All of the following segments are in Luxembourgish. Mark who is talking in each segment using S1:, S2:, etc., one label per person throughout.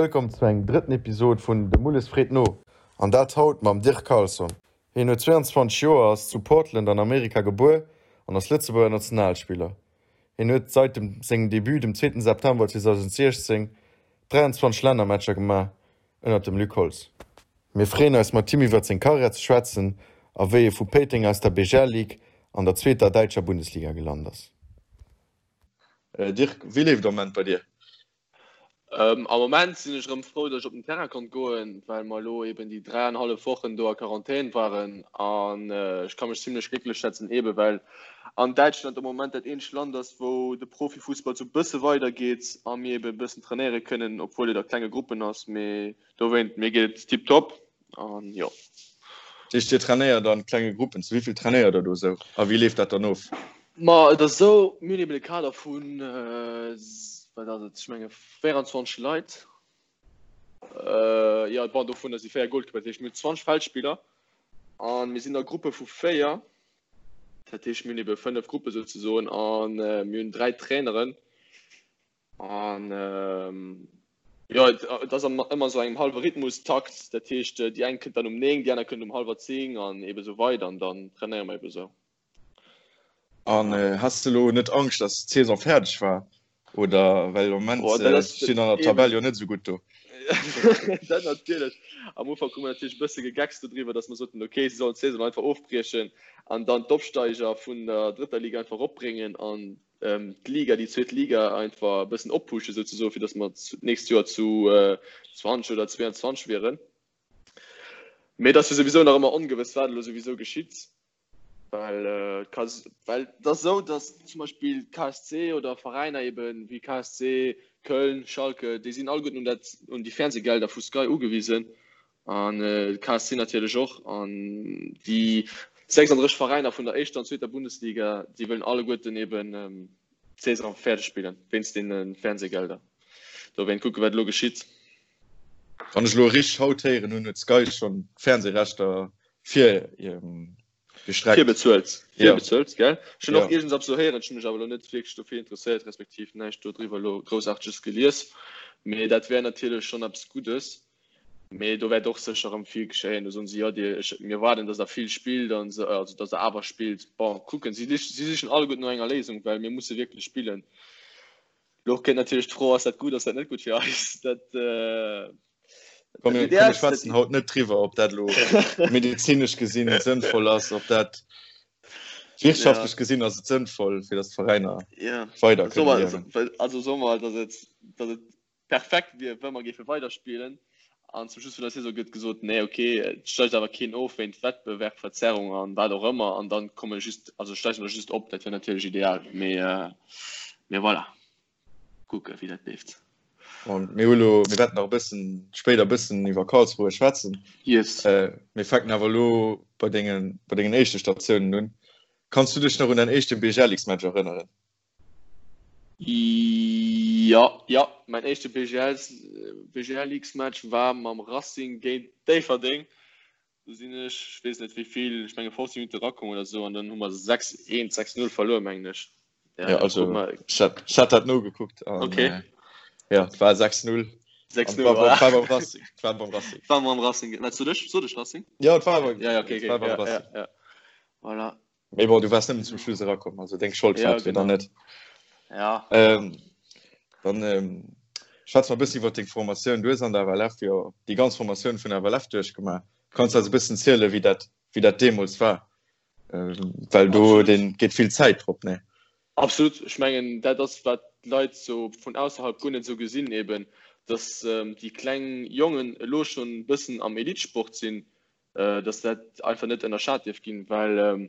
S1: Wëllkomm zu engem drëtten Episod vun De Mulles freet no. An dat haut mam Dirk Carlson. Hien huet 22 Joer, ass zu Portland an Amerika gebuer an ass Lëtzebuerger Nationalspiller. Hien huet seit dem sengem Debut dem zweeten September 2016 23 Lännermatcher gemaach ënnert dem Luc Holtz. Mir freeën eis mat him iwwert seng Karriär ze schwätzen a wéi e vu Péiteng aus der BGL Ligue an der zweeter däitscher Bundesliga gelant ass. Dirk, wéi leeft am Moment bei dir?
S2: Am Moment sinn ech erëm frou, datt ech op den Terrain konnt goen, well mer elo eben déi dräianhallef Wochen do a Quarantän waren. An ech ka mech zimlech glécklech schätzen, ebe well an Däitschland am Moment dat eenzegt Land ass, wou de Profifussball sou bësse weidergeet a mir ebe bëssen trainéiere kënnen, obwuel et a klenge Gruppen ass. Mee dowéint, mir geet et tiptop. An jo.
S1: Dat heescht, Dir trainéiert an klenge Gruppen. Zu wéi vill trainéiert Der do esou a wéi leeft dat dann of?
S2: Ma et ass esou, mir hunn eben e Kader vun, wat ass et, ech menge 24 Leit. Jo, bon, dovunner si 4 Goalkeeper, dat heescht mir hunn 20 Feldspiller a mir sinn a Gruppe vu 4. Dat heescht, mir hunn ebe 5 Gruppe souzesoen a mir hunn 3 Traineren. An jo, et ass ëmmer sou engem hallwe Rhythmus-Takt. Dat heescht, déi eng kënnt dann um 9, déi aner kënnt um hallwer 10 an ebe sou weider an dann trainéiere mer ebe sou.
S1: An has de lo net Angscht, dass d'Saison fäerdeg war? Oder well am Moment stinn an der Tabell jo net sou gutt do.
S2: Dat natierlech. Am Ufank hu mer natierlech e bësse gegeckst dodriwwer, dass mer soten, okay, si sollen d'Saison einfach ofbriechen an dann d'Opsteiger vun der drëtter Liga einfach eropbréngen an d'Liga, déi zweet Liga einfach e bëssen oppushen souzesoen, fir datt mer d'nächst Joer zu 20 oder 22 wieren. Mee et ass jo souwisou nach ëmmer ongewëss, wat elo souwisou geschitt, well et ka, well et ass esou, datt zum Beispill KSC oder Veräiner ebe wéi KSC, Köln, Schalke, déi sinn alleguerten un dat, un déi Fernsehgelder vu Sky ugewisen An de KSC natierlech och. An déi 36 Veräiner vun der éischter an zweeter Bundesliga, déi wëllen alleguerten eben d'Saison fäerdeg spillen, wéinst deene Fernsehgelder. Dowéint kucke wat elo geschitt.
S1: Wann ech elo richteg haut héieren hunn, huet Sky schonn d'Fernsehrechter fir
S2: gestreckt. Virbezuelt, virbezuelt, gell? Ech hunn och iergendeppes esou héieren, ech hunn mech awer elo net wierklech dofir interesséiert, respektiv näischt dodriwwer elo Groussaarteges gelies. Mee dat wär natierlech schonn eppes Guddes. Mee do wäert och sécher erëm vill geschéien. Do soen si, jo, dir, ech, mir erwaarden, datt der vill spillt an esou, also datt der awer spillt. Bon, kucken, si, si sichen alleguerten no enger Léisung, well mir musse wierklech spillen. Elo kënnt natierlech d'Fro, ass dat gutt, ass dat net gutt fir eis? Dat,
S1: Komm, mir, komm, mir schwätzen haut net driwwer, ob dat elo medezinesch gesinn sënnvoll ass, ob dat wirtschaftlech gesinn ass et sënnvoll, fir datt d'Veräiner weider kënne
S2: liewen. Also soe mer, datt et, datt et perfekt wier, wa mer géife weiderspillen. An zum Schluss vun der Saison gëtt gesot, nee, ok, et steigt awer keen of wéint Wettbewerbverzerrung an wat och ëmmer, an dann komme just, also steige mer just op. Dat wier natierlech ideal, mee, mee voilà, kucke wéi dat leeft.
S1: Bon, mir hu lo, mir wäerten nach e bëssen spéider e bëssen iwwer Karlsruhe schwätzen.
S2: Yes.
S1: Mir fänken awer elo bei dengen, bei dengen éischte Statiounen un. Kanns du dech nach un däin éischte BGL-X-Match erënneren?
S2: Jo, jo, mäin éischte BGL-X-Match war mam Racing géint Déifferdeng. Do sinn ech, ech weess net wéi vill, ech menge 15 Minutte erakomm oder esou an dann hu mer 6, 1, 6, 0 verluer, mengen ech.
S1: Ja, also ech hat dat nogekuckt an
S2: okay.
S1: ja, et war 6, 0.
S2: 6, 0,
S1: war beim Racing. War beim
S2: Racing. War beim Racing. Wat sot ech? Sot ech Racing?
S1: Ja, et war beim,
S2: ja, ja, okay, okay.
S1: War beim
S2: ja,
S1: Racing.
S2: Ja, ja. Voilà.
S1: Mee bon, du waars nëmmen zum Schluss erakomm, also deng Schold
S2: ja,
S1: war
S2: genau.
S1: dann net.
S2: Ja.
S1: Ähm, dann ähm, schwätz mal e bëssen iwwer deng Formatioun. Du hues an der FLF jo déi ganz Formatioun vun der FLF duerchgemaach. Kanns du eis e bëssen zielen, wéi dat, wéi dat deemools war? Ähm, well do den, geet vill Zäit drop, ne?
S2: Absolut. Ech mengen, dat ass, wat d'Leit sou vun ausserhalb guer net sou gesinn, eben, dass ähm, déi kleng Jongen elo schonn e bëssen am Elitesport sinn, dass dat einfach net ënnerschat dierf ginn, well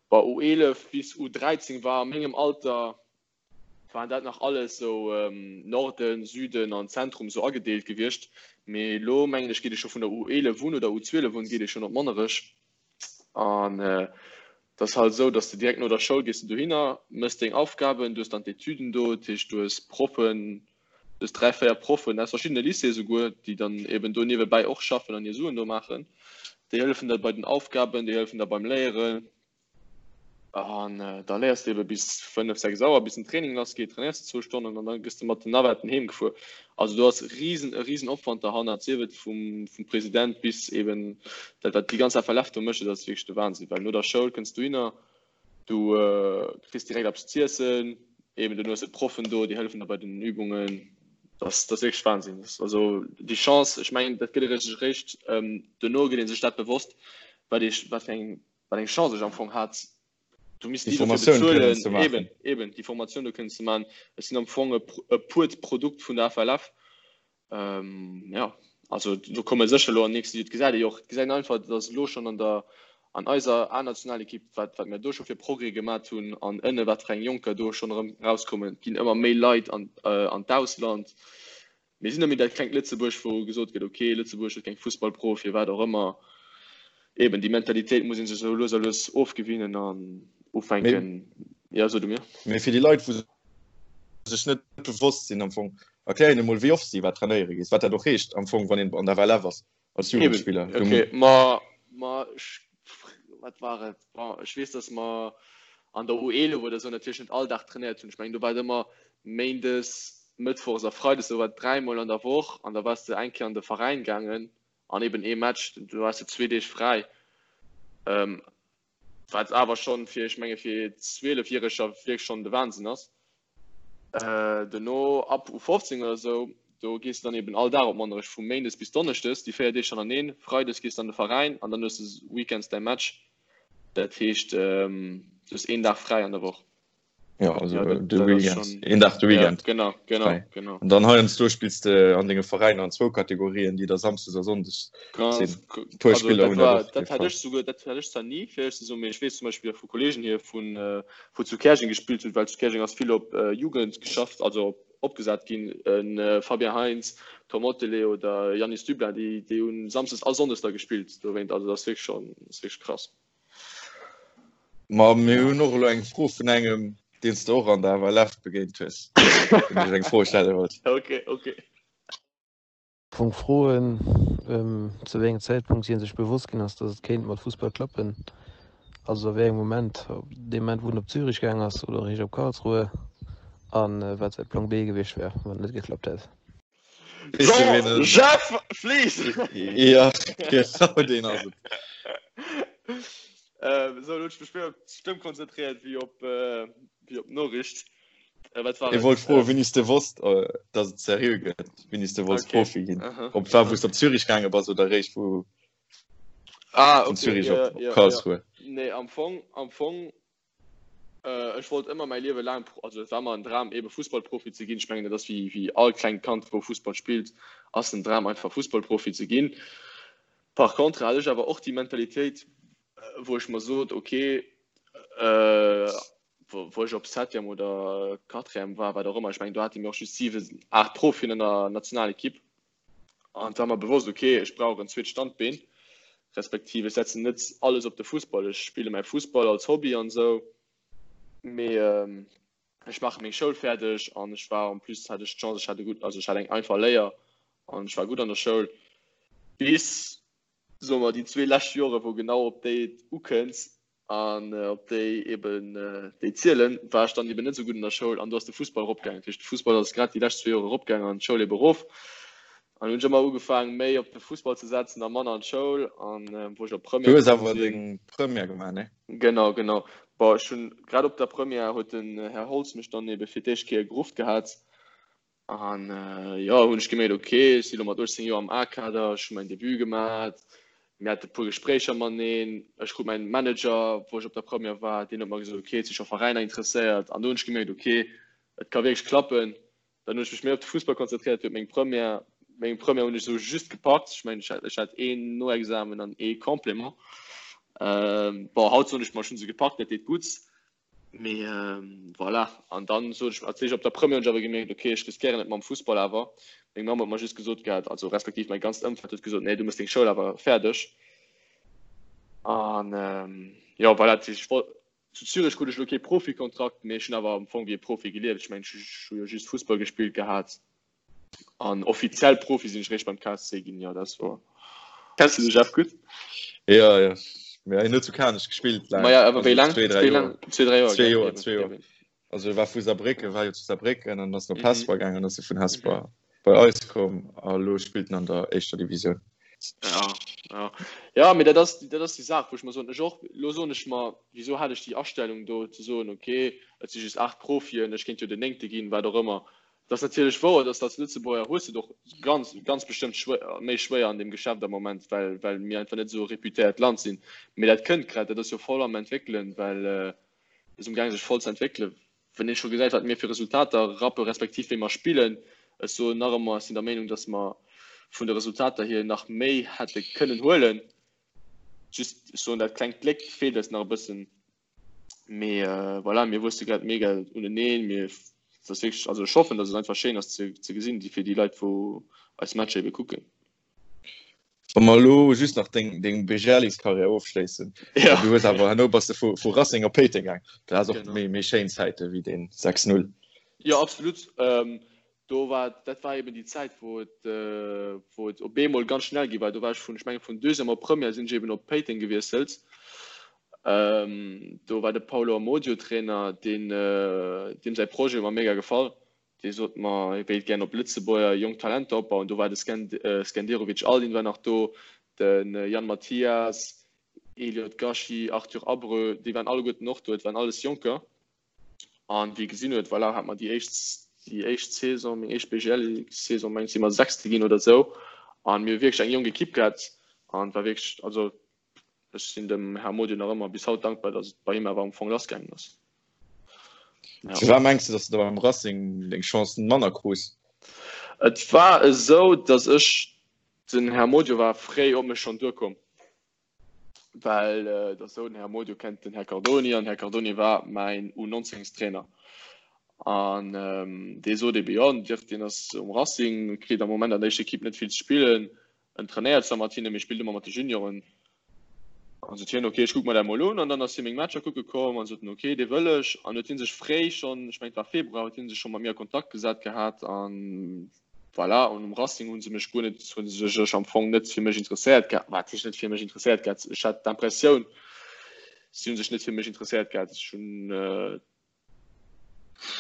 S2: bei U11 bis U13 war a mengem Alter waren dat nach alles sou Norden, Süden an Zentrum sou agedeelt gewiescht. Mee elo mengen ech geet ee scho vun der U11 un oder U12 un geet ee schonn op Monnerech an et ass halt esou, dass de direkt no der Schoul gees de dohinner, mëss deng Aufgaben, du hues dann d'Etüden do, dat heescht du hues Proffen, Du hues 3, 4 Proffen aus verschiddene Lycéeë souguer, déi dann eben do niewebäi och schaffen an hir Suen do maachen. Déi hëllefen der bei den Aufgaben, déi hëllefen der beim Léieren. An da léiers de ebe bis 5, 6 Auer, bis den Training lass geet, trainéiers de zwou Stonnen an da gëss de mat den Navetten heem gefuer. Also do ass riesen, e riesen Opwand derhannert, sief et vum, vum President bis eben dat, wat déi ganz FLF do mécht, dat ass wierklech de Wahnsinn. Well no der Schoul kënns du hinner, du kriss direkt eppes z'iessen, eben duerno hues de d'Proffen do, déi hëllefen der bei den Übungen. Dat ass, dat ass wierklech Wahnsinn. Also déi Chance, ech mengen, dat gëtt ee sech eréischt, duerno gëtt ee sech dat bewosst, wat ee, wat fir eng wat eng Chance ech am Fong hat, du misst
S1: déi Formatioun
S2: kënnen ze maachen. Eben, eben, déi Formatioun do kënnen ze maachen. Ech sinn am Fong e, e puert Produkt vun der FLF. Ähm, ja, also do komme sécher elo an nächste, et gesäit ee jo och, et gesäit een einfach, datt elo schonn an der, an eiser A-Nationalekipp, wat, wat mir do scho fir Progrès gemat hunn an ënne wat fir eng Jonker do schonn erëm erauskommen, et ginn ëmmer méi Leit an, äh, an d'Ausland. Mir sinn net méi dat klengt Lëtzebuerg, wou gesot gëtt, ok, Lëtzebuerg huet keng Fussballprofien, wat och ëmmer. Eben, déi Mentalitéit muss ee sech esou lues a lues ofgewinnen an ufänken. Jo, so du mir.
S1: Mee fir déi Leit, wou sech net bewosst sinn am Fong, erklär hinnen emol, wéi oft s de iwwerhaapt trainéiere gees, wat dat och heescht am Fong, wann een an der FLF ass als Jugendspiller.
S2: Eben, ok, ma, ma ech, wat war et? Bon, ech weess, datt mer an der U11 oder esou natierlech net all Dag trainéiert hunn. Ech mengen, do war et ëmmer Méindes, Mëttwochs a Freides, do war et dräimol an der Woch an da waars de eng Kéier an de Veräin gaangen an eben ee Match, do haas de zwee Deeg fräi. Wat awer schonn fir, ech menge fir Zwielefjäreger wierklech schonn de Wahnsinn ass. Duerno ab U15 oder esou, do gees de dann eben all Dag op Monnerech, vu Méindes bis Donneschdes, déi 4 Deeg hannerteneen. Freides gees de an de Veräin an dann hues de weekends däi Match. Dat heescht, du hues een Dag fräi an der Woch.
S1: Ja, also ja, dat, de Weekend. Schon... Een Dag de Weekend.
S2: Ja, genau, genau, frei. genau.
S1: An dann heiansdo spillst de an denge Veräiner an zwou Kategorien, déi da Samsdes a Sonndes
S2: sinn. Puer Spiller hunn dat och. Dat hat ech souguer, dat hat ech zwar ni, fir éierlech ze soen, mee ech weess zum Beispill vu Kollegen hier vun, äh, wou zu Käerjeng gespillt hunn, well zu Käerjeng ass vill op äh, Jugend geschafft, also op, opgesat ginn, en äh, Fabien Heintz, Tom Ottelé oder Yannis Dublin, déi, déi hunn Samsdes a Sonndes da gespillt dowéint. Also dat ass wierklech schonn, ass wierklech krass.
S1: Ma mir hunn och elo eng Fro vun engem, deen s de och an der FLF begéint hues, deen dech eng Fro stelle wollt.
S2: Ok, ok.
S3: Fong froen, zu wéi engem Zäitpunkt hie sech bewosst ginn ass, datt et kéint mat Fussball klappen. Also a wéi engem Moment, ob dee Moment wou en op Zürich gaang ass oder eréischt op Karlsruhe, a wat säi Plan B gewiescht wär, wann et net geklappt hätt.
S2: So, Jeff Flies!
S1: Ja, genau deen ass et.
S2: Ähm, so, elo hunn ech mech méi op d'Stëmm konzentréiert wéi op, äh, wéi op d'Noriicht.
S1: Äh, wat war Ech wollt froen, wéini s de wosst, äh, dass et seriö gëtt, wéini s de wollts okay. Profi ginn. Aha. Ob war, wou s op Zürich gaange bass oder eréischt vu
S2: ah,
S1: okay.
S2: Zürich
S1: ja, op, ja, Karlsruhe.
S2: Ja. Nee, am Fong, am Fong äh, ech wollt ëmmer mäi Liewe laang, also et war ëmmer en Dram ebe Fussballprofi ze ginn. Ech mengen, dat ass wéi, wéi all klengt Kand, wou Fussball spillt, ass den Dram einfach Fussballprofi ze ginn. Par contre hat ech awer och déi Mentalitéit, wou ech mer sot, okay, äh, wou ech op Septième oder Quatrième war, wat och ëmmer, ech mengen do hate mir och just 7, 8 Profien an der Nationalekipp. An et war mer bewosst, okay, ech brauch en zweet Standbeen, respektiv ech setzen net alles op de Fussball. Ech spille mäi Fussball als Hobby an esou, mee ech maache meng Schoul fäerdeg an ech war en plus hat ech d'Chance, ech hat e gutt, also ech hat eng einfach Léier an ech war gutt an der Schoul bis, soe mer, déi zwee lescht Jore wou genau op déi et ukënnt an op déi eben déi zielen, war ech dann eben net esou gutt an der Schoul an do ass de Fussball eropgaangen. Dat heescht, de Fussball ass grad déi lescht zwee Joer eropgaangen an d'Schoul eben erof. An hunn ech ëmmer ugefaangen, méi op de Fussball ze setzen a manner an d'Schoul. An wou ech op
S1: Première Du hues awer deng Première gemaach, ne?
S2: Genau, genau. Bon, ech hunn grad op der Première huet den Här Holtz mech dann ebe fir d'éischt Kéier gerufft gehat. An jo, hunn ech gemierkt, ok, ech si lo mat 18 Joer am A-Kader, ech hu mäin Debut gemat, mir hate puer Gespréicher mateneen, ech krut mäin Manager, wou ech op der Première war, deen huet mer gesot, ok, et si scho Veräiner interesséiert. An do hunn ech gemierkt, ok, et ka wierklech klappen. Dann hunn ech mech méi op de Fussball konzentréiert, huet meng Première, meng Première hunn ech esou just gepackt, ech mengen, ech hat een Noexamen an ee Complément. Bon, haut soen ech mer, ech hu se gepackt, dat deet gutt. Mee voilà, an dann sot ech, als ech op der Première hunn ech awer gemierkt, okay, ech riskéieren et mam Fussball awer. Meng Mamm huet mer just gesot gehat, also respektiv mäi ganzt Ëmfeld huet gesot, nee, du muss deng Schoul awer fäerdeg. An jo, voilà, dat heescht, ech wollt, zu Zürich krut ech elo kee Profikontrakt, mee ech hunn awer am Fong wéi e Profi gelieft. Ech mengen, ech hu jo just Fussball gespillt gehat. An offiziell Profi sinn ech réischt beim KSC ginn, jo, dat ass wouer. Kenns du de Jeff gutt?
S1: Jo, jo. Mee hien huet zu Kanech gespillt
S2: laang. Maja, awer wéi laang? Zwee, dräi Joer. Zwee, dräi Joer.
S1: Zwee Joer, zwee Joer. Also e war vu Saarbrécken, war jo zu Saarbrécken an ass op mhm. Hesper gaangen, ass e vun Hesper mhm. bei eis komm a lo spillt en an der éischter Divisioun.
S2: Ja, ja. Ja, mee dat ass, dat ass déi Saach, wou ech mer soen, ech och, lo soen ech mer, wieso hat ech déi Astellung do ze soen, okay, et si just 8 Profien, ech kéint jo den néngte ginn, wat och ëmmer. Dat ass natierlech wouer, dass als Lëtzebuerger hues de et och ganz, ganz bestëmmt schwéier, méi schwéier an deem Geschäft am Moment, well, well mir einfach net esou e reputéiert Land sinn. Mee dat kënnt grad, dat ass jo voll am Entwéckelen, well et ass umgaange sech voll ze entwéckelen. Wann ee scho gesäit, wat mir fir Resultater rappe respektiv wéi mer spillen, ech soen nach ëmmer, ech sinn der Meenung, dass mer vun de Resultater hier nach méi hätte kënnen huelen. Just, ech soen, dat klengt Gléck feelt eis nach e bëssen. Mee voilà, mir wuesse grad mega uneneen. Mir, et ass wierklech, also ech hoffen, datt et einfach schéin ass ze, ze gesinn, déi fir déi Leit, wou eis Matcher ebe kucken.
S1: Wa mer elo just nach deng, deng BGL-Karriär ofschléissen.
S2: Ja.
S1: Du hues awer herno bass de vu, vu Racing op Péiteng gaang. Dat ass och genau. méi, méi schéin Zäite wéi deen 6-0.
S2: Jo, absolut. Ähm, Do war, dat war eben déi Zäit, wou et, wou et op eemol ganz schnell gi war. Do war ech vun, ech mengen vun Deuxième op Première sinn ech eben op Péiteng gewiesselt. Do war de Paulo Amodio Trainer, deen, deem säi Projet huet mer mega gefall. Dee sot mer, hie wéilt gären op Lëtzebuerger jonk Talenter opbauen. Do war de Skenderovic Aldin war nach do, de Yann Mathias, Eliot Gashi, Arthur Abreu, déi waren alleguerten och do. Et waren alles Jonker. An wéi gesinn huet, voilà, hat mer déi éischt, déi éischt Saison, meng éischt BGL-Saison, meng si mer Sechste ginn oder esou. An mir hu wierklech eng jonk Ekipp gehat an war wierklech, also ech sinn dem Här Modion nach ëmmer bis haut dankbar, datt et bei him awer am Fong lassgaangen ass.
S1: Ja. Firwat mengs du, datt du da beim Racing deng Chancen manner krus?
S2: Et war esou, datt ech, den Här Modion war fréi op mech schonn duerkomm. Well et ass esou, den Här Modio kennt den Här Cardoni an den Här Cardoni war mäin U19-Trainer. An dee sot ebe, jo, den Dirk, deen ass um Racing, kritt am Moment an der éischter Ekipp net vill ze spillen. En trainéiert zwar mat hinne, mee spillt ëmmer mat de Junioren. An sot hien, ok, ech kucke mer dat mol un. An dann ass hie meng Matcher kucke komm an sot en, ok, dee wëll ech. An huet hie sech fréi schonn, ech mengen et war Februar, huet hie sech scho mat mir a Kontakt gesat gehat an Voilà, an um Racing hu se mech guer net, hu se sech am Fong net fir mech interesséiert gehat. Wat heescht net fir mech interesséiert gehat? Ech hat d'Impressioun, si hu sech net fir mech interesséiert gehat. Ech hunn,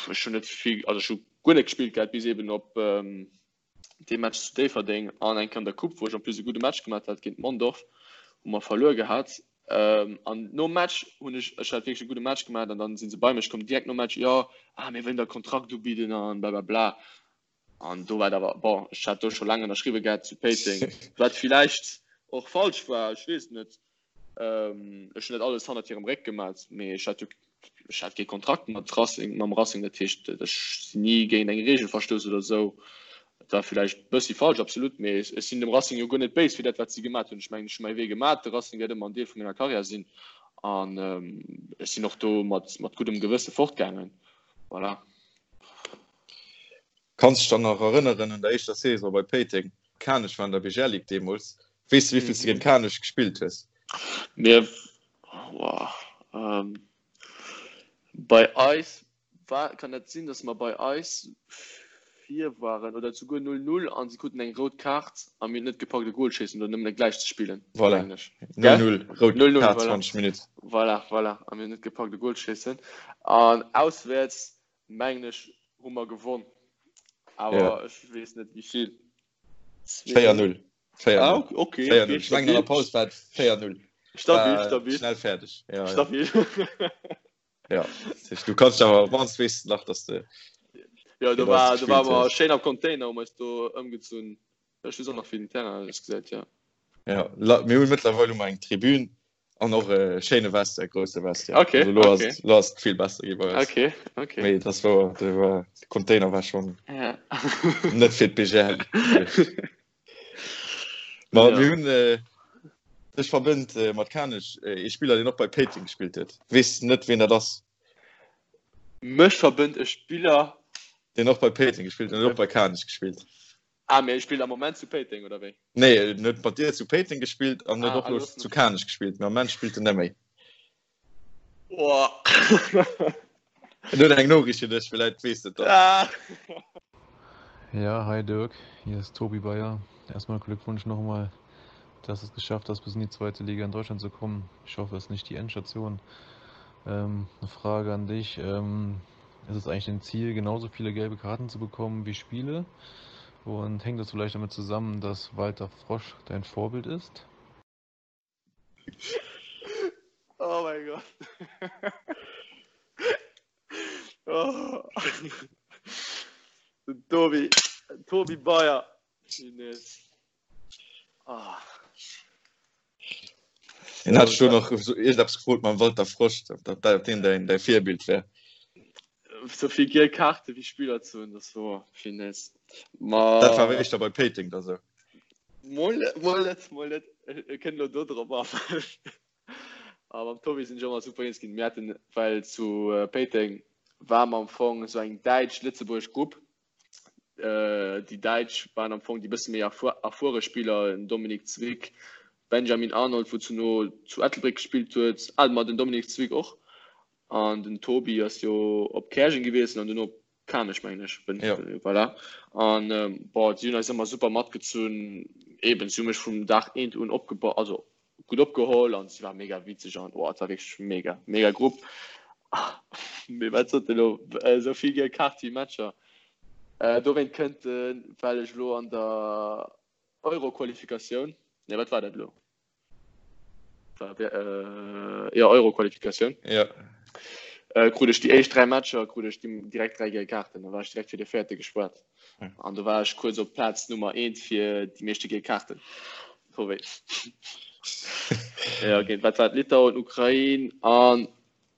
S2: ech hunn net vill, also ech hu guer net gespillt gehat, bis eben op dee Match zu Déifferdeng an eng Kéier an der Coupe, wou ech en plus e gudde Match gemaach hat géint Mondorf, wou mer verluer gehat. An nom Match hunn ech, ech hat wierklech e gudde Match gemaach an dann si se bei mech komm direkt nom Match, jo, ah mir wëllen der e Kontrakt ubidden an blablabla. An do war et awer, bon, ech hat do scho laang ënnerschriwwe gehat zu Péiteng, wat villäicht och falsch war, ech weess et net. Ech hunn net alles hannert hirem Réck gemat, mee ech hat jo, ech hat kee Kontrakt mat Racing, mam Racing, dat heescht, ech sinn ni géint eng Reegel verstouss oder esou. Et war villäicht e bëssi falsch, absolut, mee ech sinn dem Racing jo guer net béis fir dat, wat si gemat hunn. Ech mengen, ech hu mäi Wee gemat, de Racing wäert ëmmer en Deel vu menger Karriär sinn an ech sinn och do mat, mat guddem Gewësse fortgaangen. Voilà.
S1: Kanns dech dann nach erënneren un der éischter Saison bei Péiteng? Kanech war an der BGL Ligue deemools. Weess de wéivill s de géint Kanech gespillt hues?
S2: Mir, wow, bei eis war, kann dat sinn, datt mer bei eis vir waren oder souguer 0, 0 an si kruten eng rout Kaart a mir hunn net gepackt e Gol schéissen oder nëmmen e gläich ze spillen,
S1: Voilà, mengen ech. 0, 0, rout 0, 0, Kaart, voilà. 20 Minutt.
S2: Voilà, voilà, a mir hunn net gepackt e Gol schéissen an auswäerts Mengen ech hu mer gewonn, awer ja. ech weess net wéi vill.
S1: 4-0.
S2: 4-0. Ah, okay,
S1: okay, okay. Ich mengen an der Paus war 4-0.
S2: Stabil, stabil.
S1: Schnell fertig.
S2: Ja, stabil.
S1: Ja. ja. Du kannst awer wanns weess nach dass de
S2: Ja, do war, do war mer schéin am Container um eis do ëmgezunn. Ech weess och nach wéi den Terrain ausgesäit,
S1: ja. Ja, mir hunn mëttlerweil hu mer eng Tribün An och e schéine Vestiaire, grousse Vestiaire.
S2: Okay, also, lo
S1: okay. Ass, lo ass et vill besser gi bei
S2: eis. Okay, okay.
S1: Mee das war, de war, de Container war schon
S2: ja.
S1: net fir d'BGL. Ma ja. mir hunn äh, dech verbënnt äh, mat Kanech äh, ee Spiller, deen och bei Péiteng gespillt huet. Weess net, wien dat ass.
S2: Mech verbënnt e Spiller,
S1: deen och bei Péiteng gespillt huet, och bei Kanech gespillt.
S2: Ah, mee e spillt am Moment zu Péiteng, oder wéi?
S1: Nee, en huet mat dir zu Péiteng gespillt an huet och elo zu Kanech gespillt, mee am Moment spillt en net méi.
S2: Oh.
S1: En huet eng Noriicht fir dech, villäit weess de et
S2: dann. Ah.
S3: Ja, hi Dirk, hier ist Tobi Bayer. Erstmal Glückwunsch nochmal. Dass du es geschafft hast, bis in die zweite Liga in Deutschland zu kommen. Ich hoffe, es ist nicht die Endstation. Ähm, eine Frage an dich. Ähm, ist es eigentlich dein Ziel, genauso viele gelbe Karten zu bekommen wie Spiele? Und hängt das vielleicht damit zusammen, dass Walter Frosch dein Vorbild ist?
S2: Oh mein Gott. oh. Tobi, Tobi Bayer.
S1: Ah. En hat schon noch so irgendetwas gefragt mam Walter Frosch, ob dat dat den dein, dein Virbild wär.
S2: So vill giel Kaarte wéi Spiller ze hunn, das wor Finesse. Ma
S1: Dat war éischter bei Péiteng da sou.
S2: Mol net, mol net, mol net. Ech kënnt elo do drop a. A mam Tobi sinn ech ëmmer super eens ginn. Mir haten, well zu Péiteng war mer am Fong esou eng däitsch-lëtzebuergesch Grupp. Déi Däitsch waren am Fong déi bësse méi erfuere Spiller, den Dominik Zwick, Benjamin Arnold, wou zu no zu Ettelbréck gespillt huet, ah ma den Dominik Zwick och an den Tobi ass jo op Käerjeng gewiesselt an duerno op Kanech mengen ech, ja. Voilà. An bon, si hunn eis ëmmer super matgezunn, eben si hu mech vum Dag eent un opgebaut, also gutt opgeholl an si war mega witzeg an oh, et war wierklech mega, mega Grupp. Mee wat sot elo esou vill giel Kaart wéi Matcher. Äh, dowéint kënnt den, well ech elo an der Euro-Qualifikatioun, nee wat war dat elo? War, äh, ja Euro-Qualifikatioun.
S1: Ja.
S2: Äh, krut ech déi éischt 3 Matcher krut ech direkt 3 giel Kaarten, da war ech direkt fir de véierte gespuert. An do war ech kuerz op Plaz Nummer 1 fir déi meeschte giel Kaarten. Ja, géint wat war et? Litauen, Ukrain an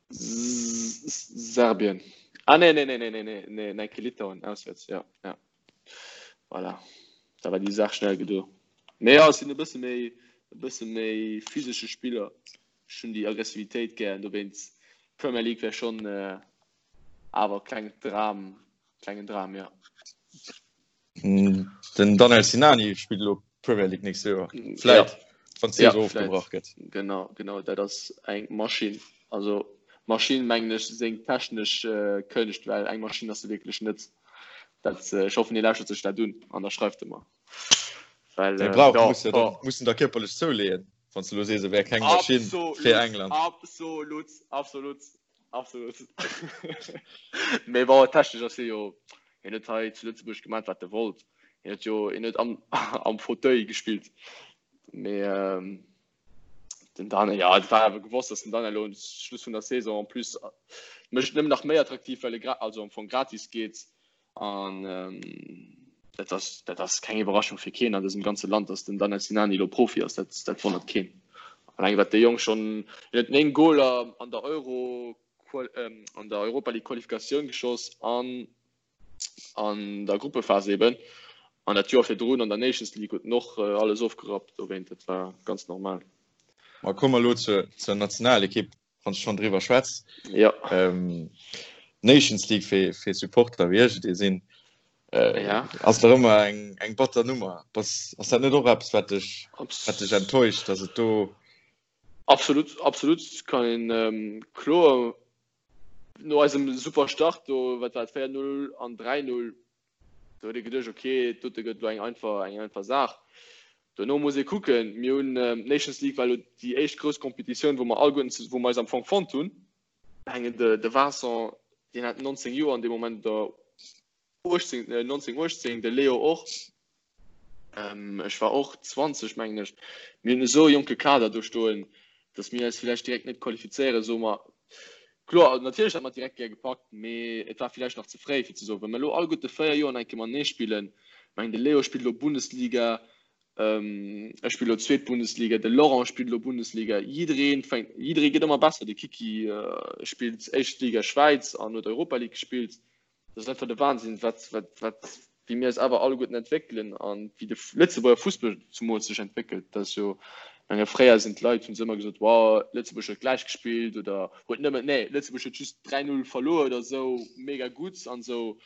S2: Serbien. Ah nee, nee, nee, nee, nee, nee, nee, nee, Litauen auswärts, ja, ja. Voilà. Da war déi Saach schnell gedo. Mee ja, ech sinn e bësse méi, e bësse méi physesche Spiller. Ech hunn déi Aggressivitéit gär, dowéinst Premier League wär schonn awer kleng Dram, klengen Dram, ja.
S1: Den Daniel Sinani spillt elo Premier League nächst Joer. Vläit, ja. wann d'Saison ja, ofgebrach gëtt.
S2: Genau, genau, dat ass eng Maschinn. Also Maschinn mengen ech seng technesch äh, Kënscht, well eng Maschinn ass se wierklech net. Dat, äh, ech hoffen, hie lauschtert sech dat un an da schreift e mer.
S1: Well, äh, brauch, ja, muss ja, oh. muss da körperlech zouleeën, wann du lo sees, e wär keng Maschinn fir England.
S2: Absolut, absolut. Absolut. Mee bon, technesch ass hie jo, hien huet hei zu Lëtzebuerg gemaat wat e wollt. Hien huet jo, hien huet am, am Fauteuil gespillt. Mee ähm, den Daniel, ja, et war awer gewosst, dass den Daniel elo um Schluss vun der Saison en plus mécht et nëmmen nach méi attraktiv, well e gra, also am Fong gratis geet. An dat ass, dat ass keng Iwwerraschung fir keen an dësem ganze Land, datt den Danel Sinani elo Profi ass. Dat, dat wonnert keen. Alleng wat dee Jong schonn, hien huet 9 Goler an der Euro, an der Europa League Qualifikatioun geschoss an an der Gruppephas eben. An dat Joer virdrun an der Nations League huet en och alles ofgerappt. Dowéint, dat war ganz normal.
S1: Ma komme mer elo zur, zur Nationalekipp. wann du schon driwwer schwätz.
S2: Ja.
S1: Ähm, Nations League fir, fir Supporter wéi ech et ee sinn, äh,
S2: ja.
S1: ass der ëmmer eng, eng batter Nummer. Bass, ass dat net och eppes, wat dech, wat dech enttäuscht, dass et do.
S2: Absolut, absolut kann een ähm, kloer no eisem super Start do, wat war et 4-0 an 3-0 Do huet ee geduecht, ok, dote gëtt elo eng einfach, eng einfach Saach. Dono muss ee kucken, mir hunn, d'Nations League war elo déi éischt grouss Competitioun, wou mer alleguerten, wou mer eis am Fong fonnt hunn. Mengen de, de Vincent, deen hat 19 Joer an deem Moment oder 18, 19, 18, de Leo och. Ech war och 20, mengen ech. Mir hunn esou e jonke Kader do stoen, datt mir eis villäicht direkt net qualifizéieren, soe mer. Kloer, natierlech hätt mer et direkt gär gepackt, mee et war villäicht nach ze fréi, fir ze soen, wa mir elo alleguerte 4 Joer nach eng Kéier matenee spillen, ech mengen de Leo spillt elo Bundesliga, ech spillen elo zweet Bundesliga, de Laurent spillt elo Bundesliga, jidderee fänkt, jidderee gëtt ëmmer besser, de Kiki spillt éischt Liga Schwäiz an huet Europa League gespillt. Dat ass einfach de Wahnsinn, wat, wat, wat, wéi mir eis awer alleguerten entwéckelen an wéi de Lëtzebuerger Fussball zumools sech entwéckelt. Dat ass jo, ech menge fréier sinn d'Leit, hunn se ëmmer gesot, wow, Lëtzebuerg huet gläich gespillt oder huet nëmmen, nee, Lëtzebuerg huet just 3, 0 verluer oder esou, mega gutt an esou.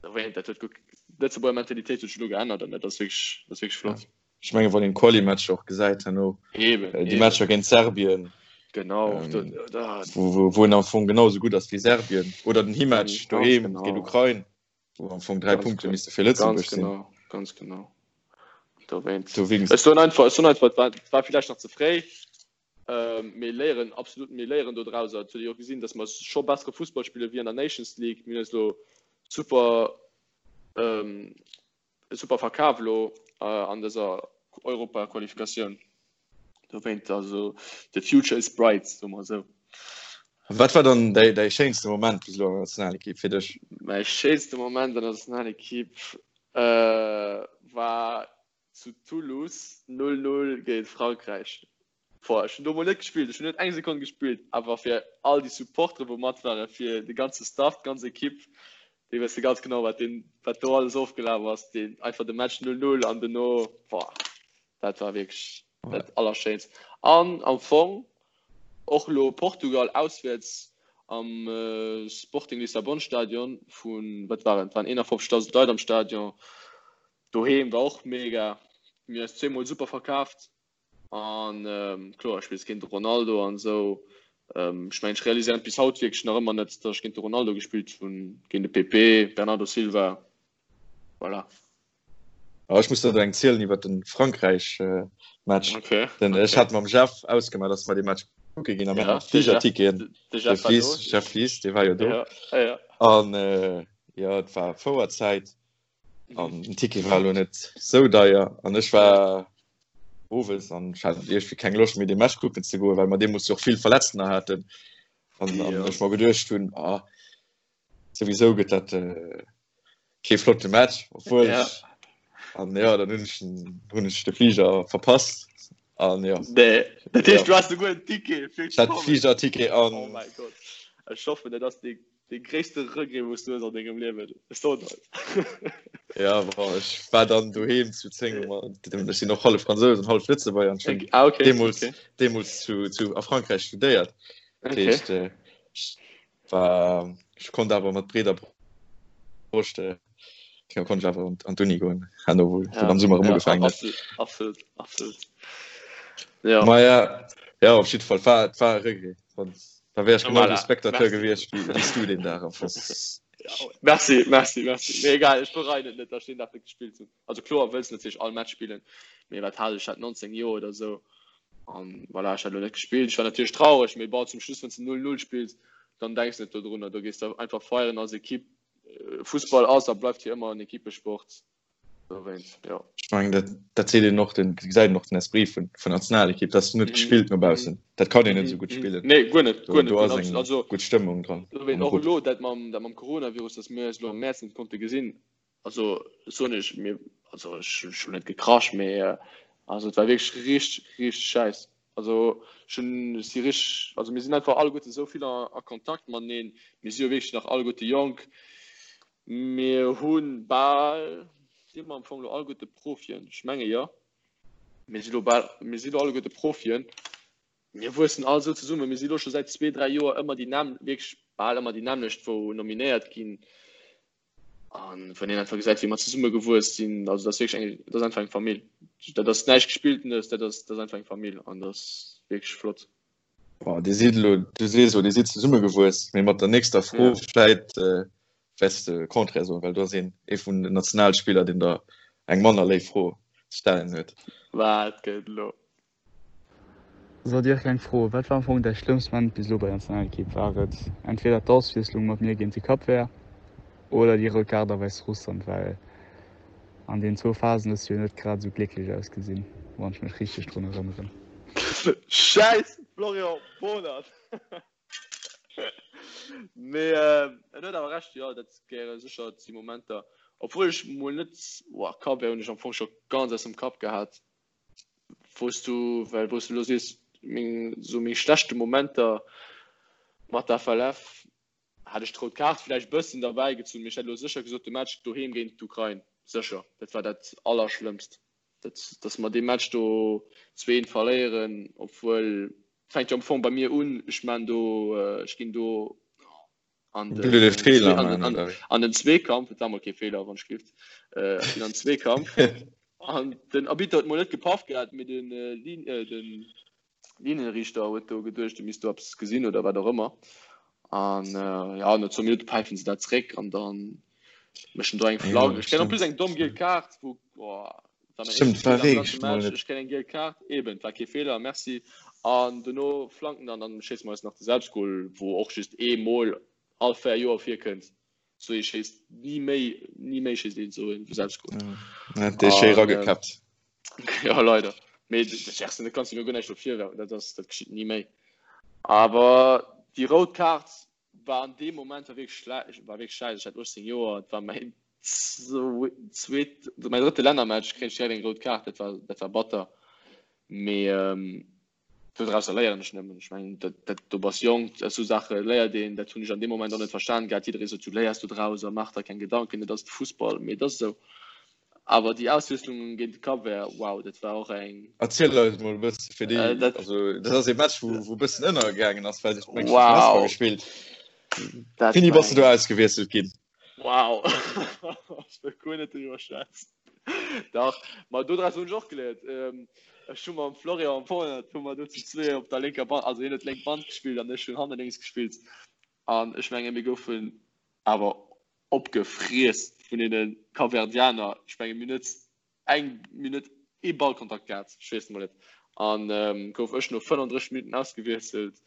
S2: Dat huet guer, d'Lëtzebuerger Mentalitéit huet sech elo geännert an dat ass wierklech, dat ass wierklech flott.
S1: Ech mengen, wann een d'Quali-Matcher och gesäit herno,
S2: Eben,
S1: déi
S2: eben.
S1: Matcher géint Serbien,
S2: Genau,
S1: ähm,
S2: do, da,
S1: wou, wou, wou en am Fong genau esou gutt ass wéi Serbien, oder den Himatch
S2: ganz
S1: doheem géint
S2: genau,
S1: Ukrain, wou am Fong 3
S2: ganz
S1: Punkte
S2: ge
S1: misste fir
S2: ganz
S1: Lëtzebuerg sinn.
S2: genau, ganz genau. Dowéinst. Ech soen einfach, ech soen einfach, et war, et war villäicht nach ze fréi. Mir léieren absolut, mir léieren do drauser. Et huet ee jo och gesinn, datt mer scho bessere Fussball spille wéi an der Nations League. Mir hunn eis elo super, super verkaf elo an dëser Europaqualifikatioun. Dowéint, also the future is bright, soe mer esou.
S1: Wat war dann däi, däi schéinste Moment bis elo an der Nationalekipp fir dech?
S2: Mäi schéinste Moment an der Nationalekipp war zu Toulouse 0, 0 géint Frankräich. Boah, ech hunn do mol net gespillt, ech hunn net eng Sekonn gespillt, awer fir all déi Supportere wou mat waren, fir de ganze Staff, d'ganz Ekipp, déi wësse ganz genau wat deen, wat do alles ofgelaf ass, deen einfach de Match 0, 0 an dono, boah, dat war wierklech dat Allerschéinst. An am Fong och elo Portugal auswäerts am Sporting Lissabon Stadion vun, wat waren et, waren 51.000 Leit am Stadion, Doheem war och mega. Mir hunn eis zweemol super verkaaft an kloer spills géint de Ronaldo an esou. Ech mengen ech realiséieren et bis haut wierklech nach ëmmer net, datt ech géint de Ronaldo gespillt hunn, géint de Pepe, Bernardo Silva, voilà.
S1: Ah, ech muss der do eng zielen iwwer den Frankräich Match.
S2: Okay.
S1: Den ech hat mam Jeff ausgemaach, dass mer dee Match kucke ginn a mir haten Fligerticketen.
S2: De Jeff war do.
S1: Jeff Lies, dee war jo do.
S2: Ja, ja.
S1: An jo, et war Fouerzäit. An den Ticket war elo net sou deier an ech war owes an ech hat iergendwéi keng Loscht méi dee Match kucken ze goen, well mer deemools jo och vill Verletztener haten an an ech mer geduecht hunn, ah souwisou gëtt dat kee flotte Match, obwuel ech an jo dann hunn ech hunn ech de Fliger verpasst an jo.
S2: Nee, dat heescht du has souguer en Ticket
S1: fir ze kommen? Ech hat de Fligerticket an.
S2: Oh mäi Gott, ech hoffen dat ass dee Dee gréisste Regret wous du hues an dengem Liewen, ech soen der
S1: et. Ja bon, ech war dann doheem zu 10 Uhr, ech sinn och hallef Fransous an hallef Lëtzebuerger an ech hunn
S2: ah, okay,
S1: deemools,
S2: okay.
S1: deemools zu, zu, a Frankräich studéiert. Dat
S2: Okay.
S1: heescht, äh, ech war, ech konnt awer mat breeder Broscht, äh, konnt ech awer an, an d'Uni goen, herno wou
S2: Ja,
S1: am Summer erëm
S2: ja,
S1: ugefaangen huet.
S2: absolut, absolut, absolut. Ja.
S1: Ma ja, ja, op jidde Fall, war, et war e Regret. Da wär ech genau
S2: voilà.
S1: esou Spectateur
S2: Merci.
S1: gewiescht wéi wéi s du deen Dag am Fong.
S2: Ja, merci, merci, merci. Mee egal, ech bereien et net, datt ech deen Dag net gespillt hunn. Also kloer wëlls du natierlech all Match spillen, mee wat hat ech? Ech hat 19 Joer oder esou an voilà, ech hat elo net gespillt. Ech war natierlech traureg, mee bon, zum Schluss, wann s de 0-0 spills, dann denks de net dodrunner. Do gees de einfach feieren als Ekipp. Fussball ass a bleift fir ëmmer en Ekippesport. Dowéinst, jo.
S1: Ech mengen, dat, dat seet een och, den, gesäit een och den Esprit vun, vun Nationalekipp, dat ass net gespillt no baussen. Dat kann een net esou gutt spillen.
S2: Nee, guer net,
S1: Do,
S2: guer net,
S1: do
S2: guer
S1: ass
S2: net.
S1: eng
S2: Also,
S1: gutt Stëmmung dran
S2: dowéint
S1: am
S2: och
S1: Grupp.
S2: elo dat mam, dat mam Coronavirus, datt mir eis elo am Mäerz net konnte gesinn, also soen ech, mir, also ech, ech hunn net gekrasch, mee also et war wierklech richteg, richteg schäiss. Also ech hunn, ech si richteg, also mir sinn einfach alleguerte esou vill a, a Kontakt mateneen, mir si jo wierklech nach alleguerte jonk, Mir hu bal, si mer am Fong elo alleguerte Profien? Ech menge jo. Mir si lo bal, mir si lo alleguerte Profien. Mir wuessen all esou zesummen. Mir si lo scho säit zwee, dräi Joer ëmmer déi nämm, wierklech bal ëmmer déi nämmlecht, wou nominéiert ginn. An wann een einfach gesäit, wéi mer zesummegewuess sinn, also dat ass wierklech eng, dat ass einfach eng Famill. Dat ass näischt Gespilltenes, dat ass, dat ass einfach eng Famill an dat ass wierklech flott.
S1: Boah, Dir sidd elo, du sees elo, Dir sidd zesummegewuess, mee mat der nächster Fro
S2: Ja.
S1: vläit äh, wäerts de Contraire soen, well do ass een ee vun den Nationalspiller, deen der eng manner léif Fro ze stellen huet.
S2: Wat gëtt elo?
S4: Sou Dirk, eng Fro, Wat war am Fong däi schlëmmst Moment bis elo bei der Nationalekipp? War et entweder d'Auswiesslung mat mir géint de Cap Vert oder déi rout Kaart a Wäissrussland? Well an deenen zwou Phasen hues du jo net grad esou glécklech ausgesinn, wann ech mech richteg drun erënneren.
S2: Schäiss Florian Bohnert! Mee en huet awer Recht, jo, dat gehéiere sécher zu Momenter. Obwuel ech mol net, boah, Cap Vert hunn ech am Fong scho ganz aus dem Kapp gehat, wou s du, well wou s du elo sees, meng, sou meng schlechte Momenter mat der FLF, Hätt ech d'rout Kaart vläicht bëssen derbäi gezunn, mee ech hätt elo sécher gesot, de Match doheem géint d'Ukrain, sécher, dat war dat Allerschlëmmst, dat, dass mer dee Match do 2, 1 verléieren, obwuel, et fänkt jo am Fong bei mir un, ech maan do, ech ginn do an
S1: Du den Feeler
S2: an,
S1: maan,
S2: an,
S1: oder wéi?
S2: an den Zweekampf, et war mol kee Feeler, wann ech gelift, ech ginn an den Zweekampf an den Arbitter huet mol net gepaff gehat, mee den Lin, den Linienriichter huet do geduecht, e misst do eppes gesinn oder wat och ëmmer. An äh, ja, no zwou Minutte päifen se dat zréck an dann méchen do eng Flagge. Ech kréien en plus eng domm giel Kaart, wou, boah, War mäin éischte Feeler am ganze Match. Ech kréien eng giel Kaart. Eben, war kee Feeler, merci. An dono flanken an dann schéisse mer eis nach de Selbstgol, wou och just ee Mol all 4 Joer virkënnt. Sou ee schéisst ni méi, ni méi schéisst een sou een Selbstgol.
S1: Ja, dee schéi ragekappt.
S2: Ja, leider. Mee de Gerson, dat kanns du mir guer näischt dofir werfen, dat ass, dat geschitt ni méi. Awer déi rout Kaart war an deem Moment war wierklech schlä war wierklech schäiss. Ech hat 18 Joer, et war mäin zweet, mäin drëtte Lännermatch, kréien ech direkt eng rout Kaart, dat war, dat war batter. Mee dodrausser léieren ech nëmmen. Ech mengen, dat, dat, do bass jonk, esou Saache léiert een. Dat hunn ech an deem Moment och net verstan gehat. Jidderee sot, du léiers dodraus a maach der keng Gedanken, et ass de Fussball. Mee et ass esou. Awer déi Auswiesslung géint de Cap-Vert, wow, dat war och eng.
S1: Erziel eis mol e bësse fir déi, äh, dat, also dat ass e Match, wou, wou e bëssen ënnergaangen ass, well sech mengt
S2: wow.
S1: gespillt. Dat Wéini bass du do ausgewiesselt ginn?
S2: Wow, ech wëll guer net driwwer schwätzen. Dach, ma dodraus hunn ech och geléiert. Ähm, ech hu mam Florian Bohnert hu mer do zu zwee op der lénker Band, also hien huet lénk Band gespillt an ech hunn hanne lénks gespillt. An ech menge mir goufen awer opgefriess vun deene Kapverdianer. Ech menge mir hunn net eng Minutt ee Ballkontakt gehat, ech weess et mol net. An gouf ech no 35 Minutten ausgewiesselt,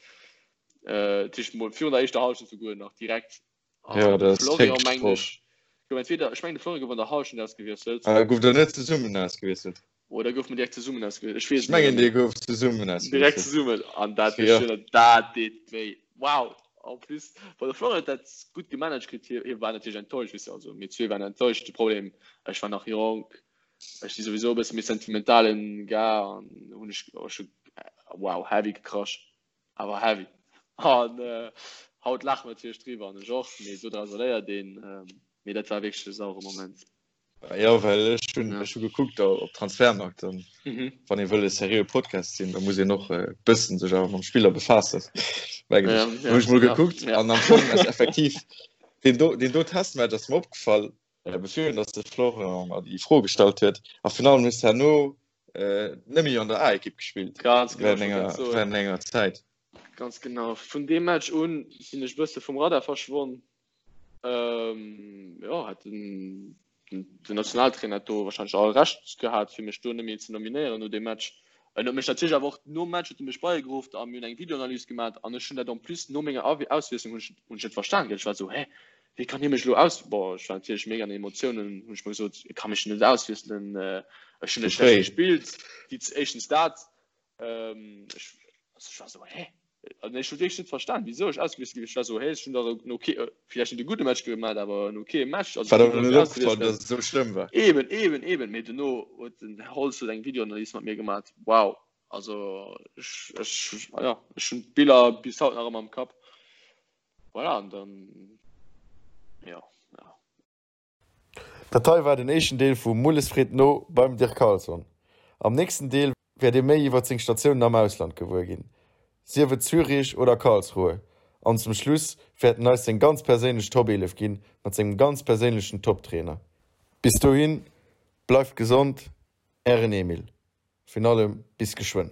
S2: dat heescht mol virun der éischter Hallschent souguer nach direkt.
S1: An de
S2: Florian mengen ech gouf entweder, ech mengen de Florian gouf an der Hallschent ausgewiesselt.
S1: Gouf der net zesummen ausgewiesselt?
S2: Oder gouf mer direkt zesummen ausgewiesselt? Ech weess
S1: et net méi. Ech mengen, dir gouft zesummen
S2: ausgewiesselt. Direkt zesummen. An dat, ja. dat deet wéi. Wow! En plus, bon, de Florian huet dat gutt gemanagt kritt. Hie, hie war natierlech enttäuscht, weess de. Also mir zwee waren enttäuscht. De Problem, ech war nach jonk, ech si souwisou e bësse méi sentimentalen Gars an hunn ech, ech hu, wow, heavy gekrasch. Awer heavy. An haut laache mer natierlech driwwer an ech och, mee dodraus léiert een. Mee dat war wierklech e sauere Moment.
S1: Jo, well ech hunn ech hu gekuckt op Transfermarkt an wann ee wëll e seriöe Podcast sinn, da muss een och e bëssen sech awer mam Spiller befaassen, mengen ech. Hunn ech mol gekuckt an am Fong ass effektiv deen do deen do Testmatch ass mer opgefall, bevir datt de Florent mer déi Fro gestallt huet a virun allem hues de herno net méi an der A-Ekipp gespillt
S2: während
S1: enger während enger Zäit.
S2: Ganz genau. Vun deem Match un sinn ech bësse vum Radar verschwonn. Ähm, jo, hat den, den Nationaltrainer hat do wahrscheinlech all Recht gehat, fir mech do net méi ze nominéieren no deem Match. En huet mech natierlech awer och nom Match huet e mech bei geruff a mir hunn eng Videoanalys gemaach an ech hunn dat en plus no menger Auswiesslung hunn ech hunn ech net verstan gell. Ech war esou, hä, wéi kann hie mech elo aus, bon, ech war natierlech mega an den Emotiounen, hunn ech mer gesot, e ka mech net auswiesselen, ech hunn net schlecht gespillt, déi éischtens dat, Ähm, ech, also ech war so, hä? Also ech hu wierklech net verstan, wisou ech ausgewiesselt ginn. Ech war so, hä, ech hunn dach en okay, äh, villäicht net e gudde Match gemaach, awer en okay Match.
S1: Also, War der net opgefall, dass et esou schlëmm war?
S2: Eben, eben, eben. Mee dono huet den Här Holz huet eng Videoanalys mat mir gemaach. Wow. Also ech, ech, ja, ech hunn d'Biller bis haut nach ëmmer am Kapp. Voilà, an dann, ja, ja.
S1: Dat hei war den éischten Deel vu Mulles freet no beim Dirk Carlson. Am nächsten Deel wäert dir méi iwwert seng Statiounen am Ausland gewuer ginn, sief et Zürich oder Karlsruhe. An zum Schluss wäert en eis seng ganz perséinlech Top 11 ginn mat sengem ganz perséinlechen Top-Trainer. Bis dohin, bleift gesond, ären Emil. Virun allem bis geschwënn.